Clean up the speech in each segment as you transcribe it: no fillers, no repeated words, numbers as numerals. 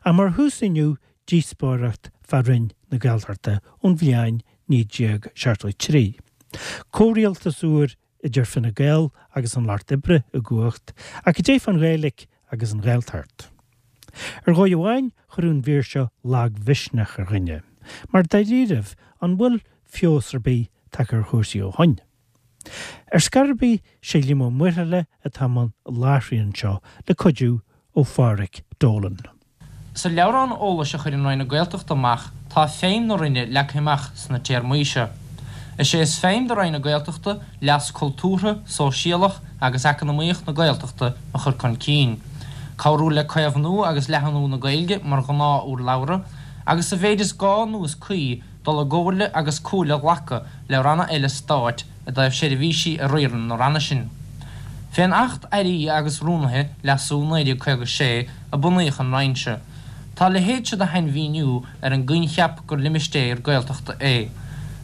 Ach mar thús inniu, díospóireacht fá Roinn na Gaeltachta ón bhliain 1973. Comhrialtas úr idir Fine Gael agus an Lucht Oibre i gcumhacht, ach cad é fán Ghaeilge agus an Ghaeltacht? Ar dhóigh amháin, chuirfeadh an mhír seo lagmhisneach ar dhuine, mar dáiríribh, an bhfuil feabhas ar bith tagtha ar chúrsaí ó shoin? Ar scor ar bith, sé Liam Ó Muirthile atá i mbun láithriú anseo le cuidiú ó Phádhraic Dolan. Sa leabhrán eolais a chuireann Roinn na Gaeltachta amach tá feidhm na Roinne leagtha amach sna téarmaí seo. Is é is feidhm do Roinn na Gaeltachta leas cultúrtha, sóisialach agus eacnamaíoch na Gaeltachta a chur chun cinn, cabhrú le caomhnú agus leathnú na Gaeilge mar ghnáth-urlabhra agus sa mhéid is gá nó is cuí dul i gcomhairle agus comhairle a ghlacadh le ranna eile stáit i dtaobh seirbhísí a riarann na ranna sin. Fén Acht Airí agus Rúnaithe, Leasú, 1956, a bunaíodh an Roinn seo. Tá a leithéid seo de shainmhíniú ar an gcoincheap gur limistéar Gaeltachta é.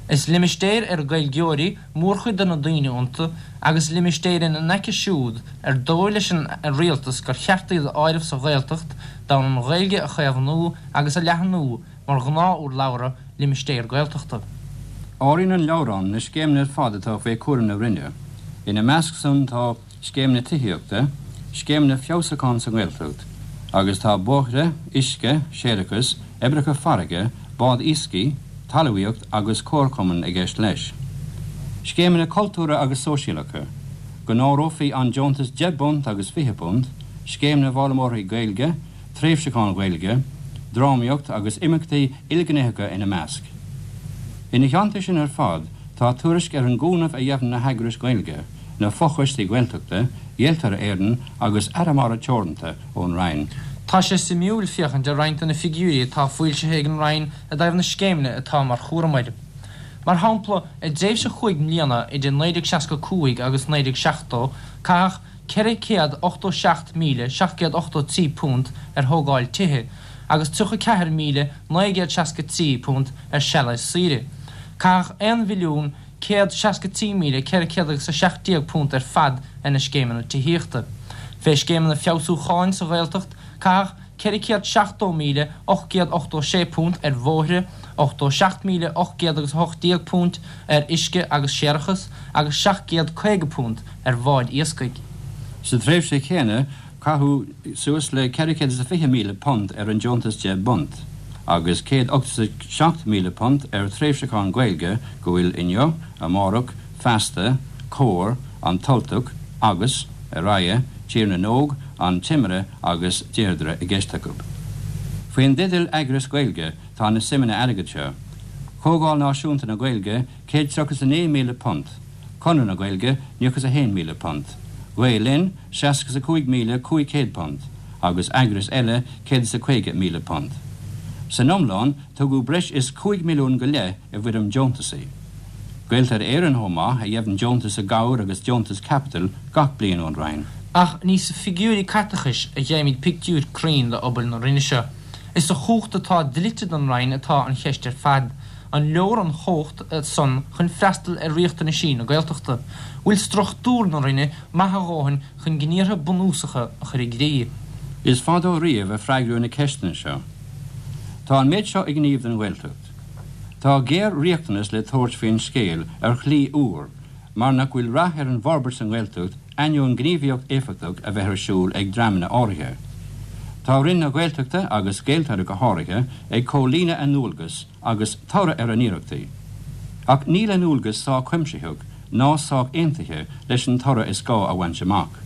Is limistéir ar Gaeilgeoirí mórchuid de na daoine iontu agus limistéir ina n-aice siúd ar dóigh leis an Rialtas gur cheart iad a áireamh sa Ghaeltacht d'fhonn an Ghaeilge a chaomhnú agus a leathnú mar ghnáth-urlabhra limistéar Gaeltachta. Áiríonn an leabhrán na scéimeanna ar fad atá faoi chúram na Roinne. Ina measc san tá scéimeanna tithíochta, scéimeanna feabhsúcháin sa nGaeltacht, agus tá bóithre, uisce, séarachas, oibreacha farraige, bád iascaigh, talmhaíocht agus comharchumainn i gceist leis. Scéimeanna cultúrtha agus sóisialacha, go n-áireofaí an deontas £10 agus £20, scéim na bhfoghlaimeoirí Gaeilge, tréimhseacháin Ghaeilge, drámaíocht agus imeachtaí ilghnéitheacha ina measc. Ina theannta sin ar fad tá tuairisc ar an gcúnamh a gheibheann na heagrais Ghaeilge, na fochoistí Gaeltachta, Gaeltarra Éireann agus Arramara Teoranta ón Roinn. Tá sé suimiúil féachaint ar roinnt de na figiúirí atá foilsithe ag an Roinn i dtaobh na scéimeanna atá mar chúram uirthi. Mar shampla, i dtréimhse chúig mbliana idir 1965 agus 1970, caitheadh £487,783 ar thógáil tithe agus £34,963 ar sealéis saoire. Caitheadh £1,163,417 ar fad ar na scéimeanna tithíochta. Fé scéimeanna feabhsúcháin sa Ghaeltacht, caitheadh £470,886 ar bhóithre, £87,818 ar uisce agus séarachas agus £750 ar bháid iascaigh. Sa tréimhse chéanna, caitheadh suas le £420,000 ar an deontas £10 agus £187,000 ar thréimhseacháin Ghaeilge go bhfuil Inniu, Amárach, Feasta, Comhar, An tUltach agus, ar aghaidh, Tír na nÓg, An Timire agus Deirdre i gceist acu. Faoin dteideal Eagrais Ghaeilge tá na suimeanna airgid seo, Comhdháil Náisiúnta na Gaeilge, £139,000, Conradh na Gaeilge, £91,000, Gael Linn, £65,500 agus eagrais eile, £150,000. San iomlán, tugadh breis is 5 milliún go leith i bhfoirm deontasaí. Gaeltarra Éireann chomh maith, a gheibheann deontas i gcabhair agus deontas caipitil gach bliain ón Roinn. Ach ní sa figiúirí caiteachais a gheibhimid pictiúr cruinn d'obair na Roinne seo. Is sa chumhacht atá dlite don Roinn atá an cheist ar fad. An leor an chumhacht san chun freastal ar riachtanaisí na Gaeltachta? Bhfuil struchtúr na Roinne maith a dhóthain chun gníortha bunúsacha a chur i gcrích? Is fadó riamh a freagraíodh na ceisteanna seo. Tá an méid seo i ngníomh don Ghaeltacht. Tá géar-riachtanas le tabhairt faoin scéal ar shlí úr mar nach bhfuil rath ar an bhforbairt sa nGaeltacht ainneoin gníomhaíocht éifeachtach a bheith ar siúl ag dreamanna áirithe. Tá Roinn na Gaeltachta agus Gaeltarra go háirithe ag comhlíonadh a ndualgas agus toradh ar a n-iarrachtaí. Ach níl a ndualgas sách cuimsitheach ná sách aontaithe leis an toradh is gá a bhaint amach.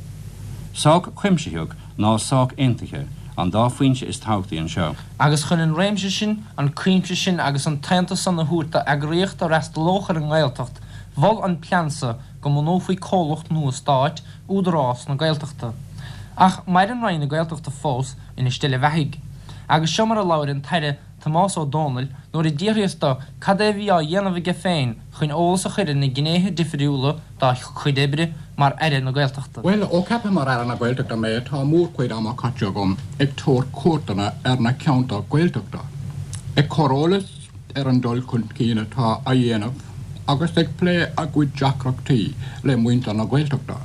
Sách cuimsitheach ná sách aontaithe an dá phointe is tábhachtaí anseo. Agus chun an réimse sin, an cuimse sin agus an t-aontas san a thabhairt d'eagraíocht a fhreastalódh ar an nGaeltacht, mhol an plean so go mbunófaí comhlacht nua stáit, Údarás na Gaeltachta. Ach maireann Roinn na Gaeltachta fós ina steillebheathaidh. Agus seo mar a labhair an tAire Tomás Ó Dónaill nuair a d'fhiafraíos do cad é a bhí á dhéanamh aige féin chun eolas a chur ar na gnéithe difriúla dá chuid oibre mar Aire na Gaeltachta. Bhuel, ó ceapadh mar Aire na Gaeltachta mé, tá mórchuid ama caite agam ag tabhairt cuairteanna ar na ceantair Ghaeltachta, ag cur eolas ar an dul chun cinn atá á dhéanamh agus ag plé a gcuid deacrachtaí le muintir na Gaeltachta.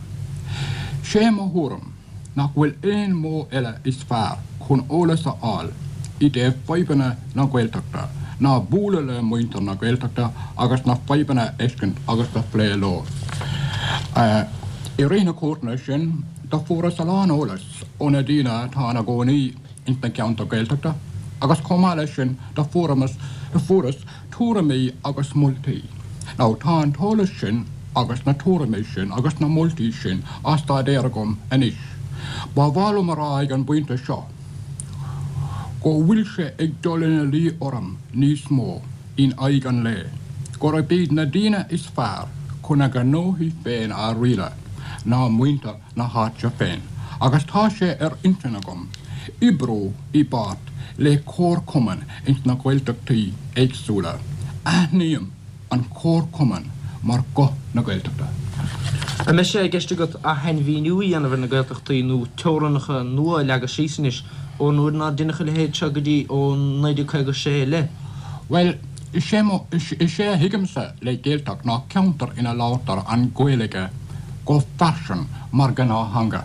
Sé mo thuairim nach bhfuil aon mhodh eile is fearr chun eolas a fháil. i dtaobh fadhbanna na Gaeltachta ná bualadh le muintir na Gaeltachta agus na fadhbanna a fheiscint agus a phlé leo. I rith na cuairteanna sin do fuaireas a lán eolais ó na daoine atá ina gcónaí ins na ceantair Gaeltachta agus chomh maith leis sin do fuaireas tuairimí agus moltaí. Now tá an t-eolas sin agus na tuairimí sin agus na moltaí sin á staidéar agam anois. Ba mhaith liom a rá ag an bpointe seo go bhfuil sé ag dul ina luí orm níos mó in aghaidh an lae gurb iad na daoine is fearr chun a ngnóthaí féin a rialadh ná muintir na háite féin agus tá sé ar intinn agam oibriú i bpáirt le comharchumainn ins na Gaeltachtaí éagsúla. Aithním an comharchumann mar guth na Gaeltachta. An mbeidh sé i gceist agat ath-shainmhíniú a dhéanamh ar na Gaeltachtaí nó teorainneacha nua a leagadh síos anois ón uair nár deineadh a leithéid seo go dtí ó 1956 i leith? Bhuel, is é mo, is é a thuigimse le Gaeltacht ná ceantar ina labhartar an Ghaeilge go fairsing mar ghnáth-theanga.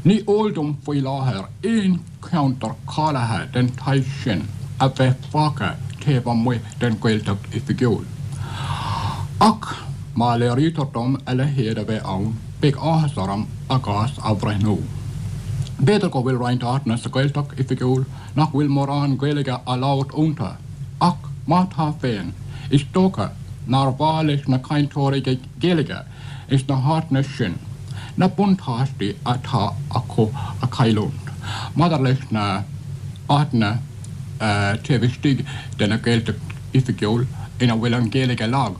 Ní eol dom faoi láthair aon cheantar cáilithe den tsaghas sin a bheith fágtha taobh amuigh den Ghaeltacht Oifigiúil. Ach má léirítear dom a leithéid a bheith ann, beidh áthas orm a gcás a bhreithniú. B'fhéidir go bhfuil roinnt áiteanna sa Ghaeltacht Oifigiúil nach bhfuil mórán Gaeilge á labhairt iontu, ach má tá féin, is dócha nár mhaith leis na cainteoirí Gaeilge ins na háiteanna sin na buntáistí atá acu a chailliúint. Maidir leis na háiteanna taobh istigh de na Gaeltacht Oifigiúil ina bhfuil an Ghaeilge lag,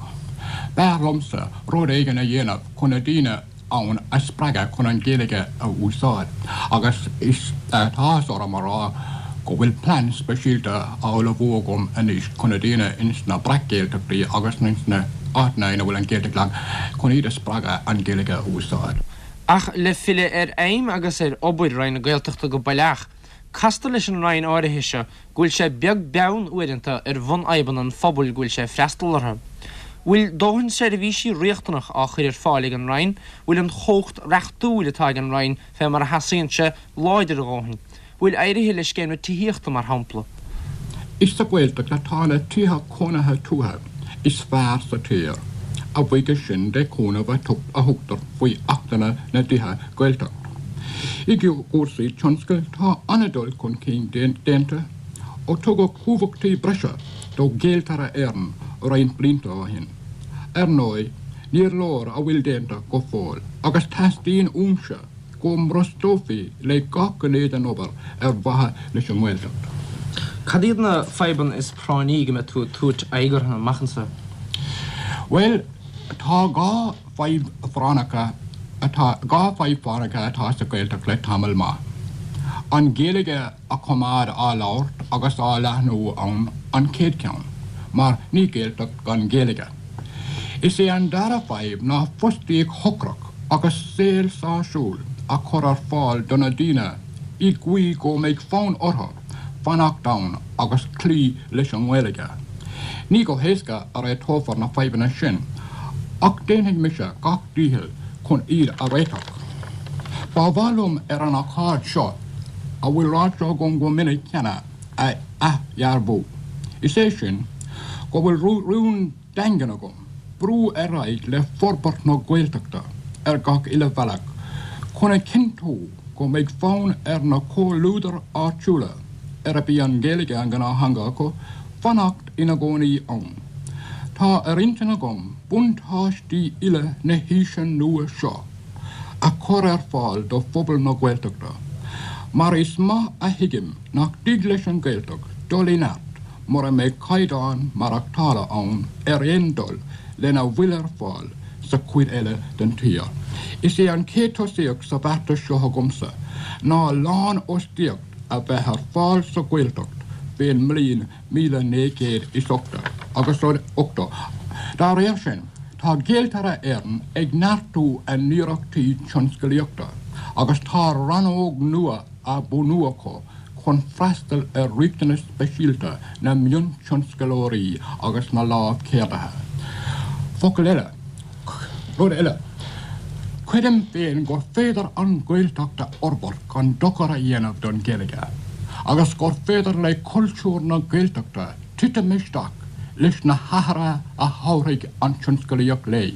b'fhearr liomsa rud éigin a dhéanamh chun na daoine ann a spreagadh chun an Ghaeilge a úsáid agus is tá áthas orm a rá go bhfuil plean speisialta á ullmhú agam anois chun na daoine ins na breac-Ghaeltachtaí agus ins na háiteanna ina bhfuil an Ghaeltacht lag, chun iad a spreagadh an Ghaeilge a úsáid. Ach le filleadh ar fheidhm agus ar obair Roinn na Gaeltachta go baileach, castar leis an Roinn áirithe seo go bhfuil sé beag beann uaireanta ar bhunfhadhbanna an phobail go bhfuil sé ag freastal orthu. Bhfuil dóthain seirbhísí riachtanach á chur ar fáil ag an Roinn? Bhfuil an chumhacht reachtúil atá ag an Roinn fé mar a theastaíonn sé láidir a dhóthain? Bhfuil éirithe le scéim na tithíochta mar shampla? Is sa Ghaeltacht atá na tithe cónaithe tuaithe is fearr sa tír, a bhuíochas sin de chúnamh a thugtar faoi Achtanna na dTithe Gaeltacht. I gcúrsaí tionscail tá an-dul chun cinn déanta ó tugadh cumhachtaí breise do Ghaeltarra Éireann roinnt blianta ó shin. Ar ndóigh, níor leor a bhfuil déanta go fóill agus teastaíonn uaimse go mbrostófaí le gach gné den obair ar mhaithe leis an nGaeltacht. Cad iad na fadhbanna is práinní go mbeidh tú ag tabhairt aghaidh orthu amach anseo? Bhuel, tá 2 fadhb phráinneacha atá 2 fadhb phráinneacha atá sa Ghaeltacht le tamall maith. An Ghaeilge a choimeád á labhairt agus á leathnú ann an chéad cheann, mar ní Gaeltacht gan Ghaeilge. Is é an dara fadhb ná fostaíocht shocrach agus saol sásúil a chur ar fáil do na daoine i gcaoi go mbeidh fonn orthu fanacht ann agus cloí leis an nGaeilge. Ní go héasca a réiteofar na fadhbanna sin ach déanfaidh mise gach dícheall chun iad a réiteach. Ba mhaith liom ar an ócáid seo a bhfuil ráite agam go minic cheana a athdhearbhú, is é sin, go bhfuil rún daingean agam brú ar aghaidh le forbairt na Gaeltachta ar gach uile bhealach chun a chinntiú go mbeidh fonn ar na comhluadair áitiúla, arb í an Ghaeilge an ghnáth-theanga acu, fanacht ina gcónaí ann. Tá ar intinn agam buntáistí uile na haoise nua seo a chur ar fáil do phobal na Gaeltachta, mar is maith a thuigim nach dtig leis an Ghaeltacht dul i neart mura mbeidh caighdeán maireachtála ann ar aon dul lena bhfuil ar fáil sa chuid eile den tír. Is é an chéad tosaíocht sa bheartas seo agamsa ná lánfhostaíocht a bheith ar fáil sa Ghaeltacht fén mbliain 1980 agus 80. Dá réir sin, tá Gaeltarra Éireann ag neartú a n-iarrachtaí tionscalaíochta agus tá rannóg nua á bunú acu chun freastal ar riachtanais speisialta na miontionscalóirí agus na lámhcheardaithe. Focal eile, rud eile, creidim féin gur féidir an Ghaeltacht a fhorbairt gan dochar a dhéanamh don Ghaeilge. agus gur féidir le cultúr na Gaeltachta titim isteach leis na hathruithe a thabharfaidh an tionscalaíocht léi.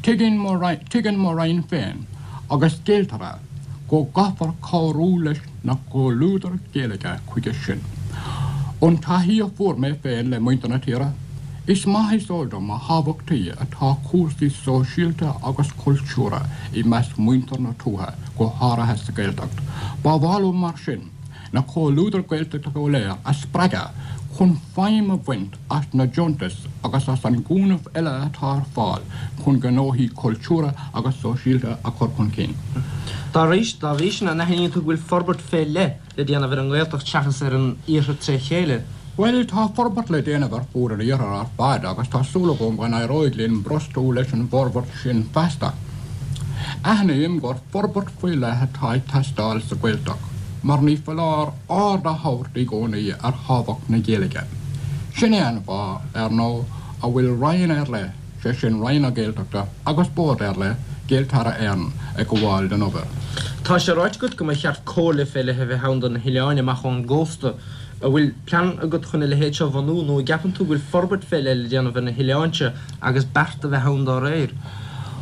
Tuigeann mo Roinn féin agus Gaeltarra go gcaithfear cabhrú leis na comhluadair Gaeilge chuige sin. Ón taithí a fuair mé féin le muintir na tíre, is maith is eol dom a thábhachtaí atá cúrsaí sóisialta agus cultúrtha i measc muintir na tuaithe, go háirithe sa Ghaeltacht. Ba mhaith liom mar sin na comhluadair Gaeltachta go léir a spreagadh chun feidhm a bhaint as na deontais agus as an gcúnamh eile atá ar fáil chun gnóthaí cultúrtha agus sóisialta a chur chun cinn. Dá bhrí sin, an aithníonn tú go bhfuil forbairt fé leith le déanamh ar an nGaeltacht seachas ar an Iarthar tré chéile? Bhuel, tá forbairt le déanamh ar fud an Iarthair ar fad agus tá súil agam go n-éireoidh linn brostú leis an bhforbairt sin feasta. Aithním gur forbairt faoi leith atá ag teastáil sa Ghaeltacht mar ní foláir aird a thabhairt i gcónaí ar thábhacht na Gaeilge. Sin é an fáth, ar ndóigh, a bhfuil Roinn ar leith, sé sin Roinn na Gaeltachta, agus Bord ar leith, Gaeltarra Éireann, ag gabháil don obair. Tá sé ráite agat go mba cheart comhairle fé leith a bheith ann do na hoileáin amach ón gcósta. An bhfuil plean agat chun a leithéid seo a bhunú nó an gceapann tú go bhfuil forbairt fé leith le déanamh ar na hoileáin seo agus bearta a bheith ann dá réir?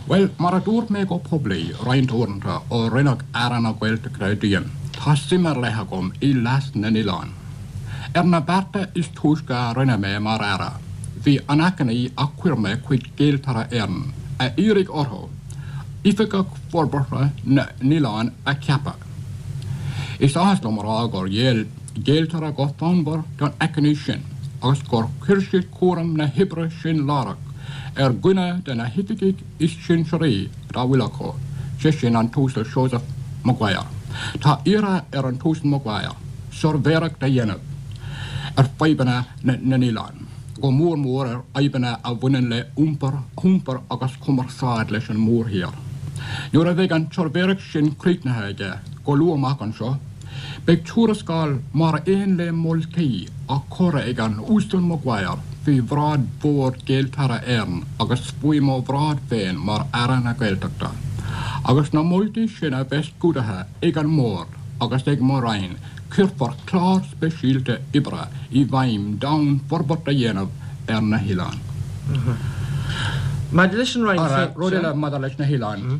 Bhuel, mar a dúirt mé go poiblí roinnt uaireanta ó rinneadh Aire na Gaeltachta díom, tá suim ar leith agam i leas na n-oileán. Ar na bearta is túisce a rinne mé mar Aire, bhí an achainí a chuir mé chuig Gaeltarra Éireann a iarraidh orthu Oifigeach Forbartha na nOileán a cheapadh. Is áthas liom a rá gur ghéill Gaeltarra go fonnmhar don achainí sin agus gur chuir siad cúram na hoibre sin láithreach ar dhuine de na hoifigigh is sinsearaí dá bhfuil acu, sé sin an tUasal Seosamh Maguire. Tá iarrtha ar an tUasal Maguire suirbhéireacht a dhéanamh ar fadhbanna na n-oileán, go mór mór ar fhadhbanna a bhaineann le hiompar agus cumarsáid leis an mórthír. Nuair a bheidh an tsuirbhéireacht sin críochnaithe aige, go luath amach anseo, Beidh tuarascáil mar aon le moltaí á cur ag an Uasal Maguire faoi bhráid Bhord Gaeltarra Éireann agus faoi mo bhráid féin mar Aire na Gaeltachta. Agus na moltaí sin a bheith scrúdaithe ag an mBord agus ag mo Roinn cuirfear clár speisialta oibre i bhfeidhm d'fhonn forbairt a dhéanamh ar na hoileáin. Maidir leis an Roinn féin. Rud eile maidir leis na hoileáin.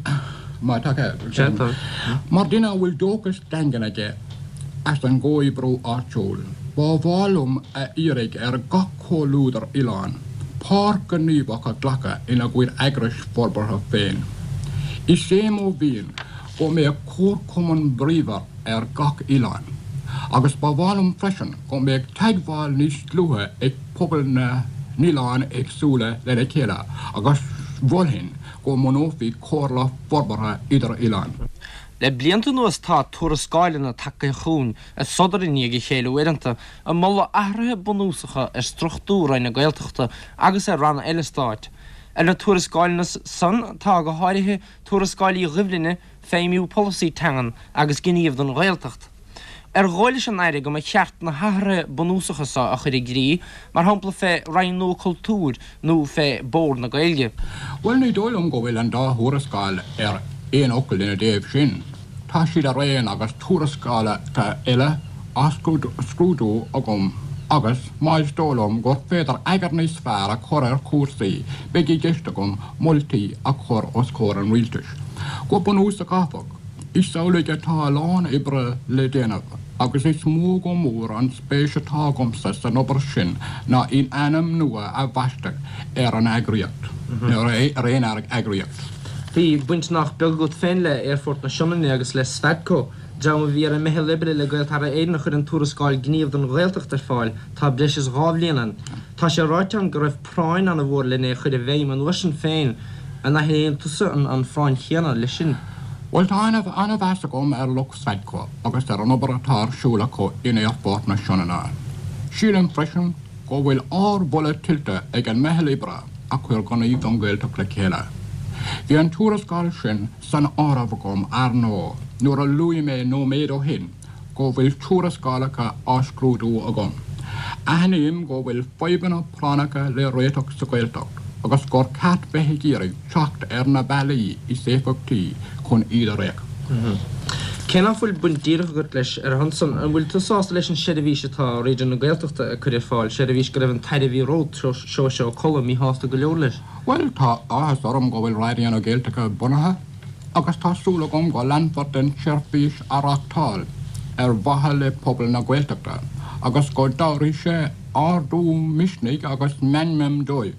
Má tá cead. Mar duine a bhfuil dóchas daingean aige as an gcomhoibriú áitiúil, ba mhaith liom a iarraidh ar gach comhluadar oileáin páirt ghníomhach a ghlacadh ina gcuid eagrais forbartha féin. Is é mo mhian go mbeadh comharchumann bríomhar ar gach oileán, agus ba mhaith liom freisin go mbeadh teagmháil níos dlúithe ag pobail na n-oileán éagsúla lena chéile agus mholfainn go mbunófaí Comhairle Forbartha Idir-Oileán. Le blianta anuas tá tuarascáileanna tagtha chugainn ag sodar i ndiaidh a chéile uaireanta, ag moladh athruithe bunúsacha ar struchtúr Roinn na Gaeltachta agus ar ranna eile stáit. Ar na tuarascáileanna san tá go háirithe tuarascáil Uí Dhoibhlinne, Feidhmiú Polasaí Teangan agus Gníomh don Ghaeltacht. Ar dhóigh leis an Aire go mba cheart na hathruithe bunúsacha so a chur i gcrích, mar shampla fé Roinn nua Cultúir nó fé Bord na Gaeilge? Bhuel, ní dóigh liom go bhfuil an dá thuarascáil ar aon fhocal ina dtaobh sin. Tá siad araon agus tuarascálacha eile á scrúdú agam agus, má is dóigh liom gur féidir eagar níos fearr a chur ar chúrsaí, beidh i gceist agam moltaí a chur os comhair an Rialtais. Go bunúsach, áfach, Is amhlaidh atá a lán oibre le déanamh agus is mó go mór an spéis atá agamsa san obair sin ná in ainm nua a bhaisteadh ar an eagraíocht, nó ar aon eagraíocht. Bhí baint nach beag agat féin le Aerfort na Sionainne agus le Sfadco, dream a bhí ar an meitheal oibre le Gaeltarra Éireann a chuir an tuarascáil Gníomh don Ghaeltacht ar fáil tá breis is 2 bhliain ann. Tá sé ráite ann go raibh práinn an-mhór len é a chur i bhfeidhm an uair sin féin. An aithníonn tusa an phráinn chéanna leis sin? Bhuel, tá an-mheas agam ar lucht Sfadco agus ar an obair atá ar siúl acu in Aerfort na Sionainne. Sílim freisin go bhfuil ardmholadh tuillte ag an meitheal oibre a chuir Gníomh don Ghaeltacht le chéile. Bhí an tuarascáil sin san áireamh agam, ar ndóigh, nuair a luaigh mé nóiméad ó shin go bhfuil tuarascálacha á scrúdú agam. Aithním go bhfuil fadhbanna práinneacha le réiteach sa Ghaeltacht agus gur ceart bheith ag iarraidh teacht ar na bealaí is éifeachtaí chun iad a réiteach. Cé nach bhfuil baint díreach agat leis ar a shon san, an bhfuil tú sásta leis an seirbhís atá Raidió na Gaeltachta ag cur ar fáil, seirbhís go raibh an tAire a bhí romhat, Seosamh Ó Colla, míshásta go leor leis? Bhuel, tá áthas orm go bhfuil Raidió na Gaeltachta bunaithe agus tá súil agam go leanfar den tseirbhís a reáchtáil ar mhaithe le pobal na Gaeltachta agus go dtabharfaidh sé ardú misnigh agus meanman dóibh.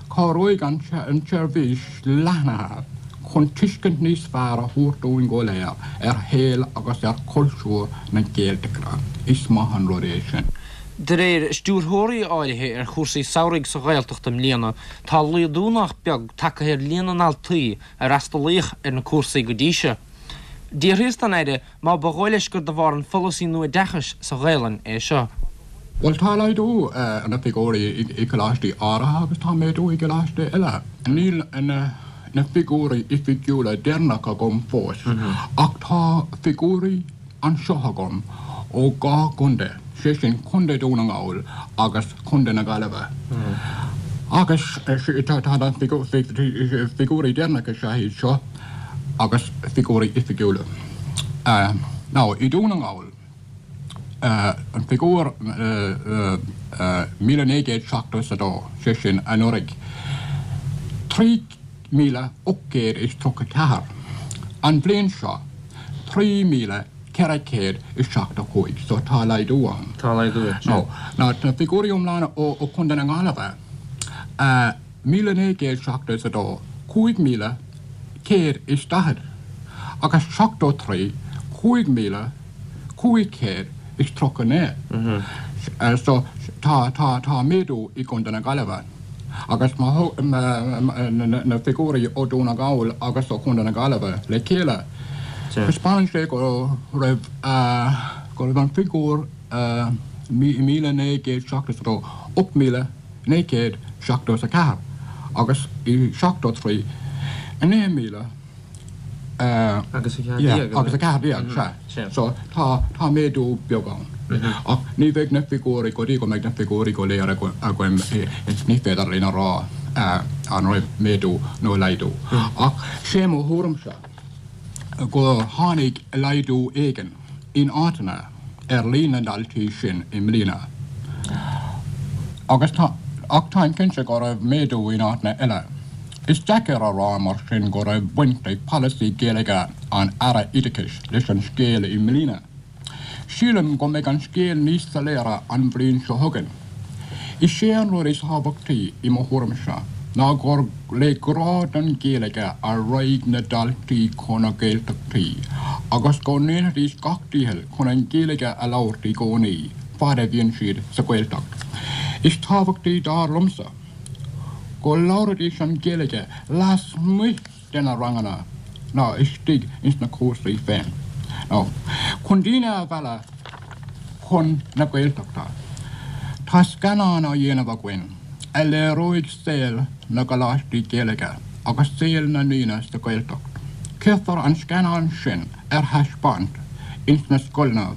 Cabhróidh an tseirbhís leathnaithe chun tuiscint níos fearr a thabhairt dúinn go léir ar shaol agus ar chultúr na Gaeltachta. Is maith an rud é sin. De réir stiúrthóirí áirithe ar chúrsaí samhraidh sa Ghaeltacht i mbliana, tá laghdú nach beag tagtha ar líon na ndaltaí a fhreastalaíodh ar na cúrsaí go dtí seo. D'fhiafraíos den Aire má ba dhóigh leis gur de bharr an pholasaí nua oideachais sa Ghaelainn é seo. Bhuel, tá laghdú ar na figiúirí i gcoláistí áirithe agus tá méadú i gcoláistí eile. Níl na figiúirí oifigiúla deireanacha agam fós ach tá figiúirí anseo agam ó dhá chontae, sé sin Contae Dhún na nGall agus Contae na Gaillimhe. Agus tá na figiúirí deireanacha is ea iad seo. agus figiúirí oifigiúla. Now, i Dún na nGall, an figiúr 1,972, sé sin anuraidh, 3,834, an bhliain seo, 3,475, so tá laghdú ann. Tá laghdú ann, sea. Now, na figiúirí iomlána ó Chontae na Gaillimhe, 1,972, 5,140 agus 73, 5,539. So tá, tá, tá méadú i gContae na Gaillimhe agus má thóg na figiúirí ó Dhún na nGall agus ó Chontae na Gaillimhe le chéile, taispeánann sé go raibh, go raibh an figiúr 1,972, 8,000. 974 agus i 73, 9,000 agus 14, sea. So tá, tá méadú beag ann. Ach ní bheidh na figiúirí, go dtí go mbeidh na figiúirí go léir againn, ní féidir linn a rá an raibh méadú nó laghdú. Ach sé mo thuairimse go tháinig laghdú éigin. in áiteanna ar líon na ndaltaí sin i mbliana agus tá ach táim cinnte go raibh méadú in áiteanna eile. Is deacair a rá mar sin go raibh baint ag polasaí Gaeilge an Aire Oideachais leis an scéal i mbliana. Sílim go mbeidh an scéal níos soiléire an bhliain seo chugainn. Is é an rud is tábhachtaí i mo thuairimse ná gur le grá don Ghaeilge a raghaidh na daltaí chun na Gaeltachtaí agus go ndéanfaidís gach dícheall chun an Ghaeilge a labhairt i gcónaí fad a bhíonn siad sa Ghaeltacht. Is tábhachtaí dar liomsa go labhraidís an Ghaeilge lasmuigh de na ranganna ná istigh ins na cúrsaí féin. Now, chun daoine a mhealladh chun na Gaeltachta, tá scannán á dhéanamh againn a léireoidh saol na gcoláistí Gaeilge agus saol na ndaoine sa Ghaeltacht. Cuirfear an scannán sin ar thaispeáint ins na scoileanna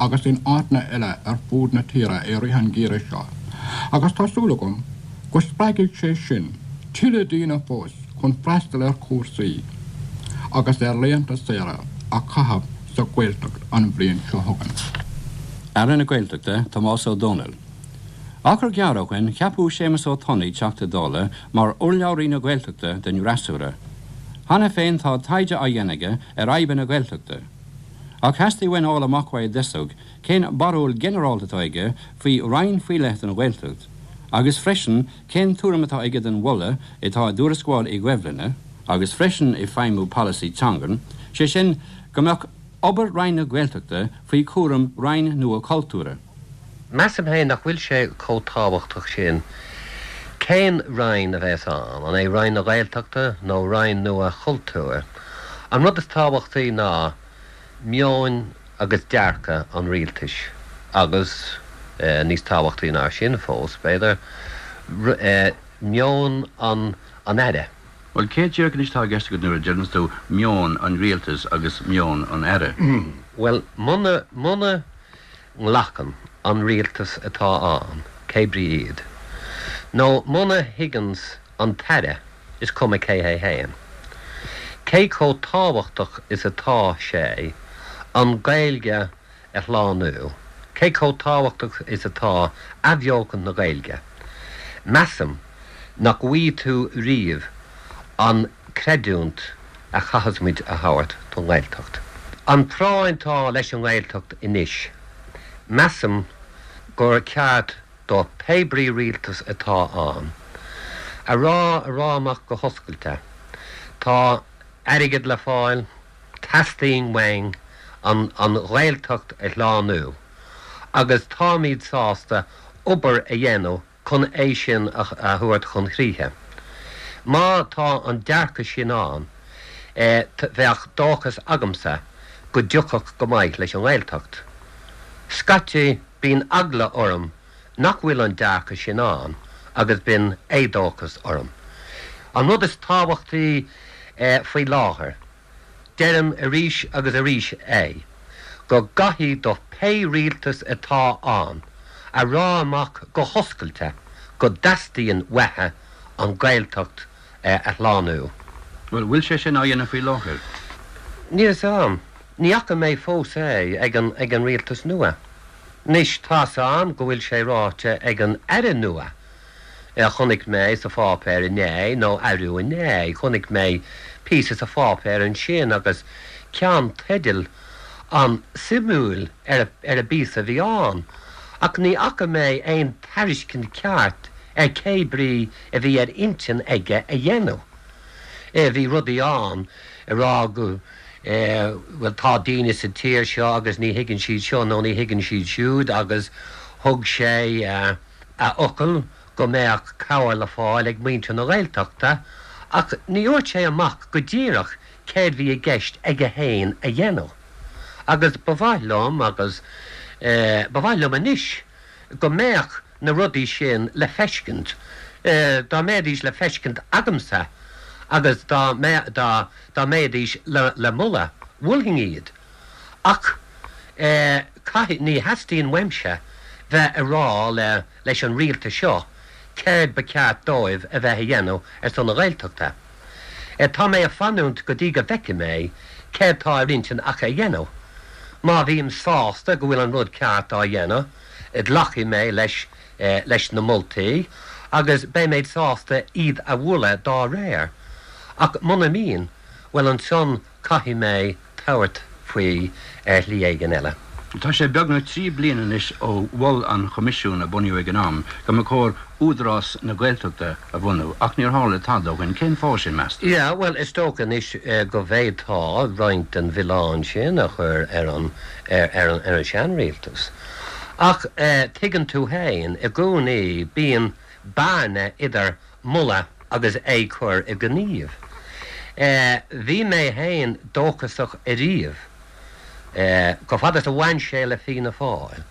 agus in áiteanna eile ar fud na tíre i rith an gheimhridh seo agus tá súil agam go spreagfaidh sé sin tuilleadh daoine fós chun freastal ar chúrsaí agus ar laethanta saoire a chaitheamh sa Ghaeltacht an bhliain seo chugainn. Aire na Gaeltachta, Tomás Ó Domhnaill. Achar gearr ó shoin ceapadh Séamus Ó Tonnaigh, Teachta Dála, mar urlabhraí na Gaeltachta den fhreasúra. Cheana féin tá taighde á dhéanamh aige ar fhadhbanna na Gaeltachta. Ach theastaigh uainn fháil amach uaidh i dtosach cén barúil ghinearálta atá aige faoi roinn faoi leith don Ghaeltacht agus freisin cén tuairim atá aige den mholadh atá i dTuarascáil Uí Dhoibhlinne agus freisin i Feidhmiú Polasaí Teangan, sé sin go mbeadh obair Roinn na Gaeltachta faoi chúram Roinn nua Cultúir. Measaim féin nach bhfuil sé chomh tábhachtach sin cén Roinn a bheas ann, an é Roinn na Gaeltachta nó Roinn nua Chultúir. An rud is tábhachtaí ná meon agus dearcadh an rialtais agus, níos tábhachtaí ná sin fós, b'fhéidir, meon an Aire. Bhuel, cé díreach anois atá i gceist agat nuair a deireanns tú meon an rialtais agus meon an Aire? Bhuel, muna, muna nglacann an rialtas atá ann, cé brí iad, nó muna thuigeanns an tAire, is cuma cé hé fhéin, cé chomh tábhachtach is atá sé. An Ghaeilge a shlánú, cé chomh tábhachtach is atá athbheochan na Gaeilge, measaim nach bhfaighidh tú riamh an chreidiúint a chaithfeas muid a thabhairt don nGaeltacht. An phráinn atá leis an nGaeltacht anois, measaim gur ceart do pé brí rialtas atá ann, a rá a rá amach go hoscailte, tá airgead le fáil, Teastaíonn uainn an an Ghaeltacht a shlánú agus táimid sásta obair a dhéanamh chun é sin a thabhairt chun críche. Má tá an dearcadh sin ann, bheadh dóchas agamsa go dtiocfadh go maith leis an nGaeltacht. Scaití bíonn eagla orm nach bhfuil an dearcadh sin ann agus bíonn éadóchas orm. An rud is tábhachtaí faoi láthair, deirim arís agus arís é, go gcaithfidh do pé rialtas atá ann a rá amach go hoscailte go dteastaíonn uathu an Ghaeltacht a shlánú. Bhuel, bhfuil sé sin á dhéanamh faoi láthair? Níl 'fhios a'm. Ní fhaca mé fós é ag an ag an rialtas nua. Anois, tá's a'm go bhfuil sé ráite ag an Aire nua, a chonaic mé sa pháipéar inné, nó arú inné, chonaic mé píosa sa pháipéar ansin agus ceannteideal an-suimiúil ar ar an bpíosa a bhí ann, ach ní fhaca mé aon tairiscint ceart ar cé brí a bhí ar intinn aige a dhéanamh. Bhí rudaí ann ag rá go. bhuel tá daoine sa tír seo agus ní thuigeann siad seo nó ní thuigeann siad siúd agus thug sé a fhocal go mbeadh cabhair le fáil ag muintir na Gaeltachta ach ní dhúirt sé amach go díreach céard bhí i gceist aige fhéin a dhéanamh agus ba mhaith liom agus ba mhaith liom anois go mbeadh na rudaí sin le feiscint, dá mbeidís le feiscint agamsa agus dá dá dá mbeidís le le moladh, mholfainn iad. Ach caithfidh, ní theastaíonn uaimse bheith a rá le leis an rialtas seo céard ba cheart dóibh a bheith a dhéanamh ar son na Gaeltachta. Tá mé a fanúint go dtí go bhfeicfidh mé céard tá ar intinn acu a dhéanamh. Má bhím sásta go bhfuil an rud ceart á dhéanamh, glacfaidh mé leis leis na moltaí agus beidh mé sásta iad a mholadh dá réir. Ach muna mbíonn, bhuel ansan caithfidh mé tabhairt faoi ar shlí éigin eile. Tá sé beagnach 3 bliana anois ó mhol an Choimisiún a bunaíodh ag an am go mba chóir Údarás na Gaeltachta a bhunú ach níor tharla tada ó shin. Cén fáth sin, meas tú? Yeah, bhuel, is dócha anois go bhféadfá roinnt den mhilleán sin a chur ar an, ar an, ar an seanrialtas. Ach tuigeann tú fhéin, i gcónaí bíonn bearna idir moladh agus é cur i ngníomh. Bhí mé fhéin dóchasach ariamh, chomh fada is a bhain sé le Fianna Fáil.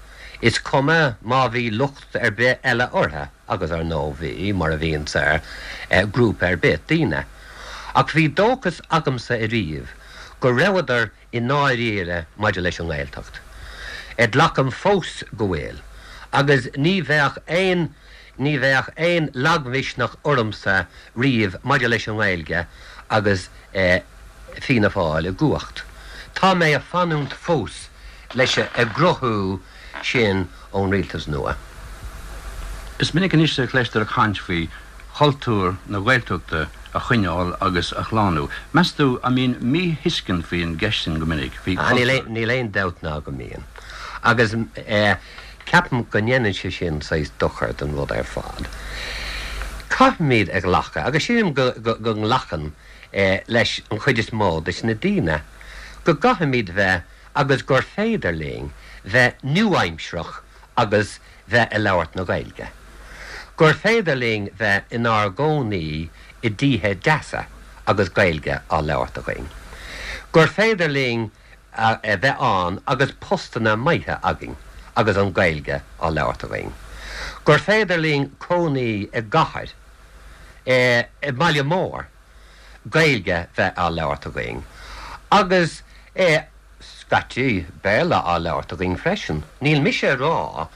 Is cuma má bhí locht ar bith eile orthu, agus ar ndóigh bhí, mar a bhíonns ar ghrúpa ar bith daoine. Ach bhí dóchas agamsa ariamh go rabhadar i ndáiríre maidir leis an nGaeltacht. Glacaim fós go bhfuil, agus ní bheadh aon ní bheadh aon lagmhisneach ormsa riamh maidir leis an nGaeilge agus Fianna Fáil i gcumhacht. Tá mé a fanúint fós leis a gcruthú sin ón rialtas nua. Is minic anois a chloistear caint faoi chultúr na Gaeltachta a choinneáil agus a shlánú. Meas tú an mbíonn míthuiscint faoin gceist sin go minic, faoi chultúr? Níl aon dabht ná go mbíonn. Agus ceapaim go ndéanann sé sin saghas dochar don rud ar fad. Caithfimid a ghlacadh, agus sílim go nglacann leis an chuid is mó de na daoine, go gcaithfimid bheith agus gur féidir linn bheith nua-aimsearach agus bheith a labhairt na Gaeilge. Gur féidir linn bheith inár gcónaí i dtithe deasa agus Gaeilge á labhairt againn. Gur féidir linn a bheith ann agus postanna maithe againn agus an Ghaeilge á labhairt againn. Gur féidir linn cónaí i gcathair, i mbaile mór, Gaeilge bheith á labhairt againn agus, scaití, Béarla á labhairt againn freisin. Níl mise a rá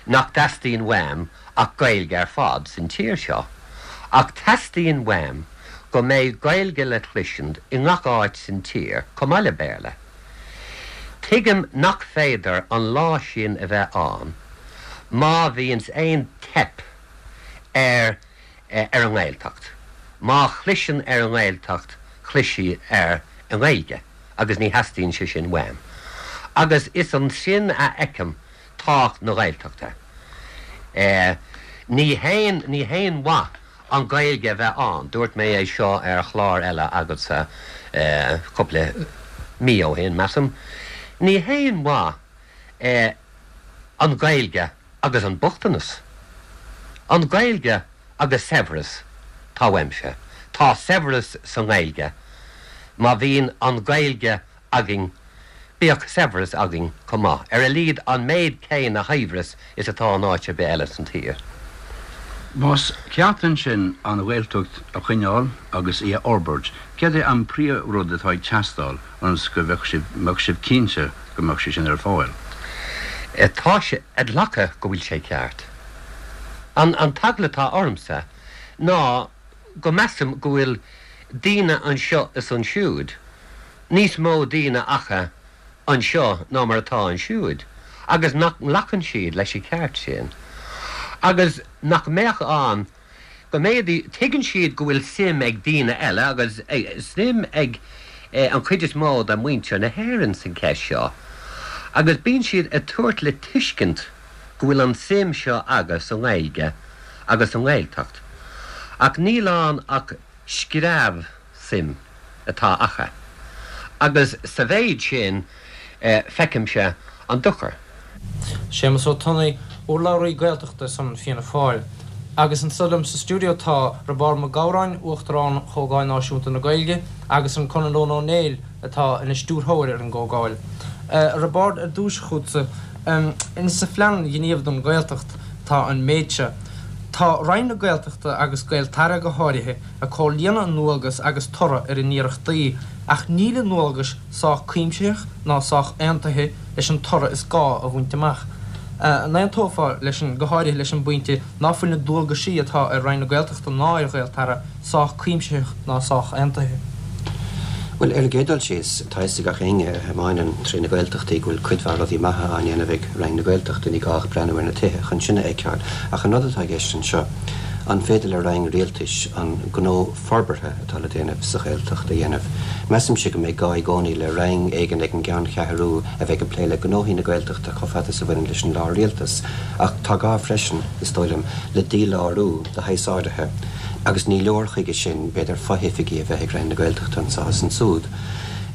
nach dteastaíonn uaim ach Gaeilge ar fad san tír seo, ach teastaíonn uaim go mbeidh Gaeilge le cloisint i ngach áit san tír chomh maith le Béarla. Tuigim nach féidir an lá sin a bheith ann má bhíonns aon teip ar ar an nGaeltacht. Má chliseann ar an nGaeltacht, clisfidh ar an nGaeilge agus ní theastaíonn sé sin uaim. Agus is ansin a fheicim tábhacht na Gaeltachta. Ní haon ní haon mhaith an Ghaeilge a bheith ann, dúirt mé é seo ar chlár eile agatsa cúpla mí ó shin, measaim. Ní haon mhaith an Ghaeilge agus an bochtanas. An Ghaeilge agus saibhreas, tá uaimse. Tá saibhreas sa nGaeilge. Má bhíonn an Ghaeilge againn, bíodh saibhreas againn chomh maith, ar a laghad an méid céanna shaibhreas is atá in áit ar bith eile san tír. Más ceart ansin an Ghaeltacht a choinneáil agus í a fhorbairt, céard é an príomh-rud atá ag teastáil ionas go mbeadh sibh cinnte go mbeadh sé sin ar fáil? Tá sé a ghlacadh go bhfuil sé ceart. An t-eagla atá ormsa ná go measaim go bhfuil daoine anseo is ansiúd, níos mó daoine acu anseo ná mar atá ansiúd, agus nach nglacann siad leis an cheart sin, agus nach mbeadh ann go mb'fhéidir, tuigeann siad go bhfuil suim ag daoine eile agus suim ag an chuid is mó de mhuintir na hÉireann san cheist seo, agus bíonn siad ag tabhairt le tuiscint go bhfuil an suim seo acu sa nGaeilge agus sa nGaeltacht, ach níl ann ach screamh suim atá acu, agus sa mhéid sin feicimse an dochar. Séamus Ó Tonnaigh, urlabhraí Gaeltachta ar son Fianna Fáil. Agus anseo liom sa stiúideo tá Roibeárd Mac Gabhráin, Uachtarán Chomhdháil Náisiúnta na Gaeilge, agus an Conall Ó Néill atá ina stiúrthóir ar an gComhdháil. A Roibeárd, ar dtús chugatsa, insa phlean gnímh don Ghaeltacht tá an méid seo, Tá Roinn na Gaeltachta agus Gaeltarra go háirithe ag comhlíonadh a ndualgas agus toradh ar a n-iarrachtaí, ach níl a ndualgais sách cuimsitheach ná sách aontaithe leis an toradh is gá a bhaint amach. An aontófá leis sin, go háirithe leis an bpointe ná fuil na dualgaisí atá ar Roinn na Gaeltachta ná ar Ghaeltarra sách cuimsitheach ná sách aontaithe? Bhuel, ar an gcéad dul síos, tá a fhios ag gach éinne a thiomáineann tré na Gaeltachtaí go bhfuil cuid mhaith rudaí maithe á ndéanamh ag Roinn na Gaeltachta, ní gá ach breathnú ar na tithe chun sin a fheiceáil. Ach an rud atá i gceist anseo, an féidir le Roinn Rialtais an gnó forbartha atá le déanamh sa Ghaeltacht a dhéanamh? Measaimse go mbeidh gá i gcónaí le Roinn éigin ag an gceanncheathrú a bheidh ag plé le gnóthaí na Gaeltachta chomh fada is a bhaineann leis an lár-rialtas. Ach tá gá freisin, is dóigh liom, le dílárú de shaghas áirithe, agus ní leor chuige sin, b'fhéidir, fo-oifigí a bheith ag Roinn na Gaeltachta anseo is ansúd.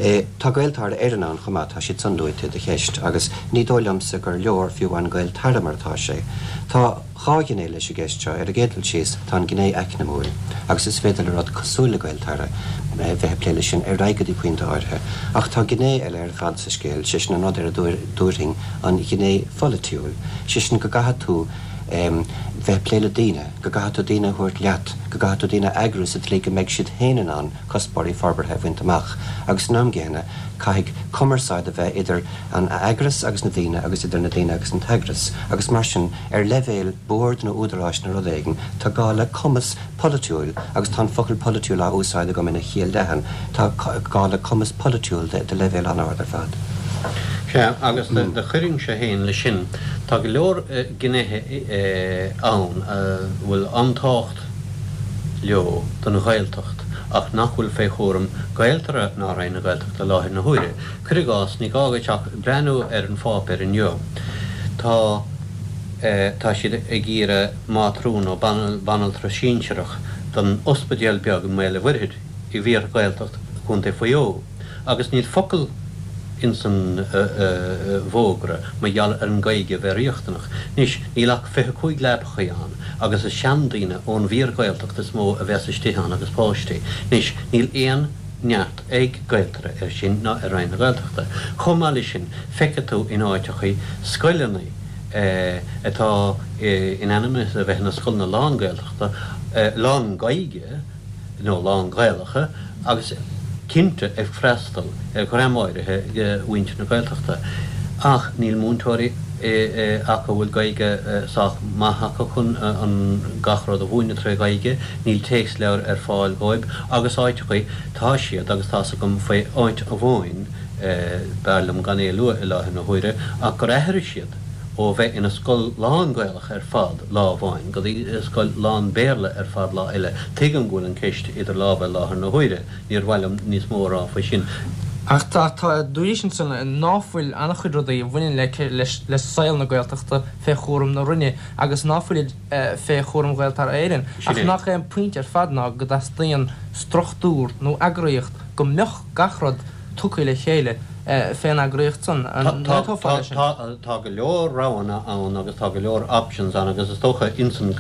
Tá Gaeltarra Éireann ann chomh maith, tá siad san luaite i do cheist, agus ní dóigh liomsa gur leor fiú amháin Gaeltarra mar atá sé. Tá dhá ghné leis an gceist seo. Ar an gcéad dul síos, tá an ghné eacnamúil, agus is féidir le rud cosúil le Gaeltarra bheith ag plé leis sin ar aghaidh go dtí pointe áirithe. Ach tá gné eile ar fad sa scéal, sé sin an rud ar a dtabharfainn an ghné pholaitiúil, sé sin go gcaithfidh tú bheith ag plé le daoine, go gcaithfidh tú daoine a thabhairt leat, go gcaithfidh tú daoine a eagrú sa tslí go mbeidh siad féin in ann cuspóirí forbartha a bhaint amach agus san am gcéanna caithfidh cumarsáid a bheith idir an eagras agus na daoine agus idir na daoine agus an t-eagras agus mar sin ar leibhéal boird nó údaráis nó rud éigin tá gá le cumas polaitiúil, agus tá an focal polaitiúil á úsáid agam ina chiall leathan, tá gá le cumas polaitiúil de leibhéal an-ard ar fad. Sea, agus do chuirfinnse féin leis sin, tá go leor gnéithe ann a bhfuil an-tábhacht leo don Ghaeltacht ach nach bhfuil fé chúram Gaeltarra ná Roinn na Gaeltachta i láthair na huaire. Cuir i gcás, ní gá dhuit ach breathnú ar an pháipéar inniu, tá tá siad ag iarraidh mátrún nó banaltra sinsearach don ospidéal beag i mBaile Mhuirthid i bhfíor-Ghaeltacht Chontae Mhaigh Eo agus níl focal ins an bhfógra mar gheall ar an Ghaeilge a bheith riachtanach. Anois, níl ach 25 leapachaí ann agus is seandaoine ón bhfíor-Ghaeltacht is mó a bheas istigh ann agus páistí. Anois, níl aon neart ag Gaeltarra air sin ná ar Roinn na Gaeltachta. Chomh maith leis sin, feicfidh tú in áiteachaí scoileanna atá in ainm is a bheith ina scoileanna lán-Ghaeltachta, lán-Ghaeilge nó lán-Ghaelacha agus cinnte ag freastal ar dhream áirithe de mhuintir na Gaeltachta. Ach níl múinteoirí acu a bhfuil Gaeilge sách maith acu chun an gach rud a mhúineadh tré Ghaeilge, níl téacsleabhair ar fáil dhóibh agus áiteachaí tá siad agus tá's agam faoi áit amháin. B'fhearr liom gan é a lua i láthair na huaire, ach gur athraigh siad ó bheith ina scoil lán-Ghaelach ar fad lá amháin go dtí scoil lán-Bhéarla ar fad lá eile. Tuigim go bhfuil an ceist idir lámha i láthair na huaire, níor mhaith liom níos mó a rá faoi sin. Ach tá, tá, dúraís ansan ná fuil an-chuid rudaí a bhaineann le, le saol na Gaeltachta fé chúram na Roinne agus ná fuilid fé chúram Ghaeltarra Éireann. Sin Ach é. nach é an pointe ar fad ná go dteastaíonn struchtúr nó eagraíocht go mbeadh gach rud tugtha le chéile fén eagraíocht san. An n-aontófá leis sin? Tá go leor roghanna ann agus tá go leor options ann agus is dócha ins an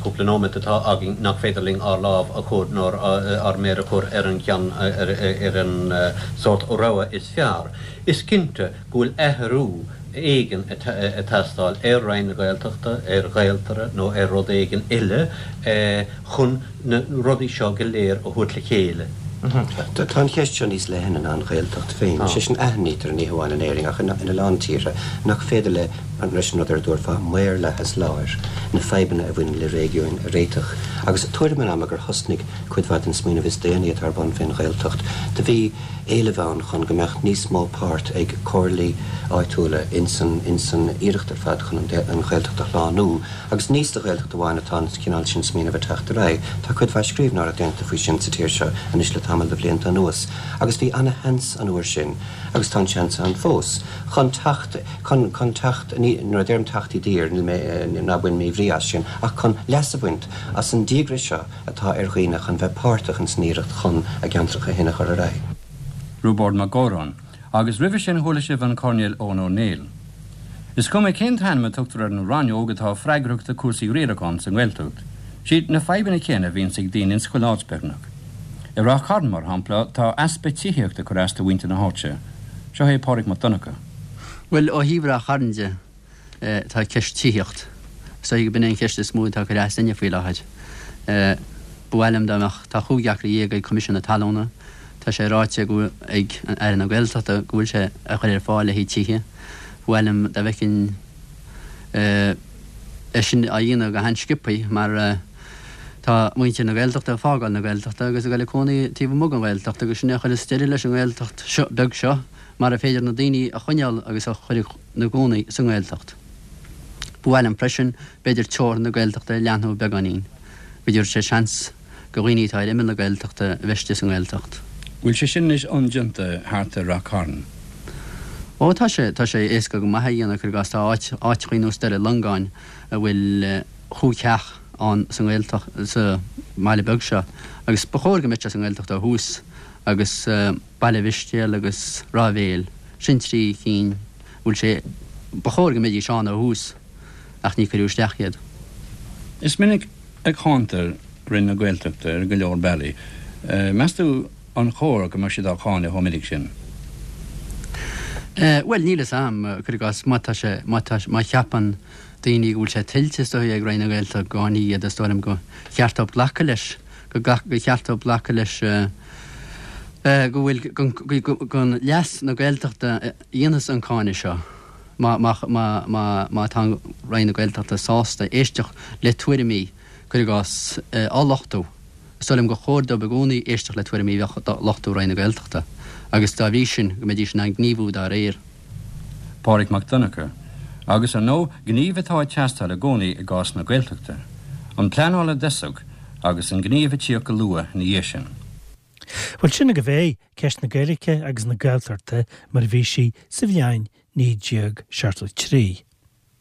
cúpla nóiméad atá againn nach féidir linn ár lámh a chur nó ár méar a chur ar an cheann, ar an sórt rogha is fearr. Is cinnte go bhfuil athrú éigin ag teastáil ar Roinn na Gaeltachta, ar Ghaeltarra nó ar rud éigin eile chun na rudaí seo go léir a thabhairt le chéile. Tá an cheist seo níos leithne ná an Ghaeltacht féin. Sé sin, aithnítear, ní hamháin in Éirinn ach ina lán tíortha, nach féidir le, leis an rud ar a dtabharfá maorlathas láir, na fadhbanna a bhaineann le réigiúin a réiteach. Agus tuairim an ama gur thosnaigh cuid mhaith den smaoineamh is déanaí atá ar bun fén Ghaeltacht, do bhí éileamh ann chun go mbeadh níos mó páirt ag comhairlí áitiúla ins an ins an iarracht ar fad chun an Ghaeltacht a shlánú. Agus ní sa Ghaeltacht amháin atá an cineál sin smaoinimh ag teacht ar aghaidh, tá cuid mhaith scríbhneoireacht déanta faoi sin sa tír seo anois le tamall de bhlianta anuas, agus bhí ana-sheans an uair sin, agus tá an seans ann fós, chun teacht, chun, chun teacht, ní, nuair a deirim teacht i dtír, níl mé, ná bain míbhrí as sin, ach chun leas a bhaint as an díograis seo atá ar dhaoine chun bheith páirteach ins an iarracht chun a gceantracha féin a chur ar aghaidh. Roibeárd Mac Góráin, Agus roimhe sin chuala sibh an Coirnéal Eoghan Ó Néill. Is cuma cén t-ainm a tugtar ar an rannóg atá freagrach do cúrsaí riaracháin sa nGaeltacht, siad na fadhbanna céanna a bhíonns ag daoine ins chuile áit beagnach. I Ráth Chairn, mar shampla, tá easpa tithíochta ag cur as do mhuintir na háite. Seo é Pádraig Mac Donncha. Bhuel, ó thaobh Ráth Chairn de, tá ceist tithíocht. Is dóigh go b'in é an cheist is mó atá ag cur as duine faoi láthair. Ba mhaith liom dá mbeadh, tá chúig acra dhéag ag Coimisiún na Talúna, tá sé ráite go ag Aire na Gaeltachta go bhfuil sé á chur ar fáil le haghaidh tithe. Ba mhaith liom dá bhfeicfinn é sin á dhéanamh go han-sciobthaí mar tá muintir na Gaeltachta ag fágáil na Gaeltachta agus ag dul ag cónaí taobh amuigh den Ghaeltacht agus sin é a chuireas deireadh leis an nGaeltacht seo beag seo mara féidir na daoine a choinneáil agus a chur ina gcónaí sa nGaeltacht. Ba mhaith liom freisin, b'fhéidir teorainn na Gaeltachta a leathnú beagáinín, go dtabharfadh sé seans go dhaoine atá ar imeall na Gaeltachta a bheith istigh sa nGaeltacht. Bhfuil sé sin anois iondeanta thart ar Rath Cairn? Ó tá sé, tá sé éasca go maith a dhéanamh, cuir i gcás tá áit, áiteachaí nós Doire Longáin a bhfuil chúig theach ann sa nGaeltacht, sa mbaile beag seo agus ba chóir go mbeadh sé sa nGaeltacht ó thús agus, Baile Mhistéal agus Ráth Bhéil, sin trí cinn a bhfuil sé, ba chóir go mbeidís ann ó thús ach ní cuireadh isteach iad. Is minic a cháintear Roinn na Gaeltachta ar go leor bealaí. Meas tú an chóir go mbeadh siad á cháineadh chomh minic sin? Bhuel, níl fhios a'm, cuir i gcás, má tá sé, má tá, má cheapann daoine go bhfuil sé tuillte is dóigh ag Roinn na Gaeltachta go gcáinfí iad, is dóigh liom gur cheart dóibh glacadh leis, go, gur cheart dóibh glacadh leis, go bhfuil chun leas na Gaeltachta a dhéanfas an cáineadh seo má tá Roinn na Gaeltachta sásta éisteacht le tuairimí, cuir i gcás, á lochtú. Is dóigh liom gur chóir dóibh i gcónaí éisteacht le tuairimí a bheadh á lochtú Roinn na Gaeltachta agus dá bhrí sin go mbeidís in ann gníomhú dá réir. Pádraig Mac Donncha, Agus ar ndóigh, gníomh atá ag teastáil i gcónaí i gcás na Gaeltachta. An pleanáil i dtosach agus an gníomh ag tíocht go luath ina dhiaidh sin. Bhuel, sin agaibh é, ceist na Gaeilge agus na Gaeltachta mar a bhí sí sa bhliain 1973.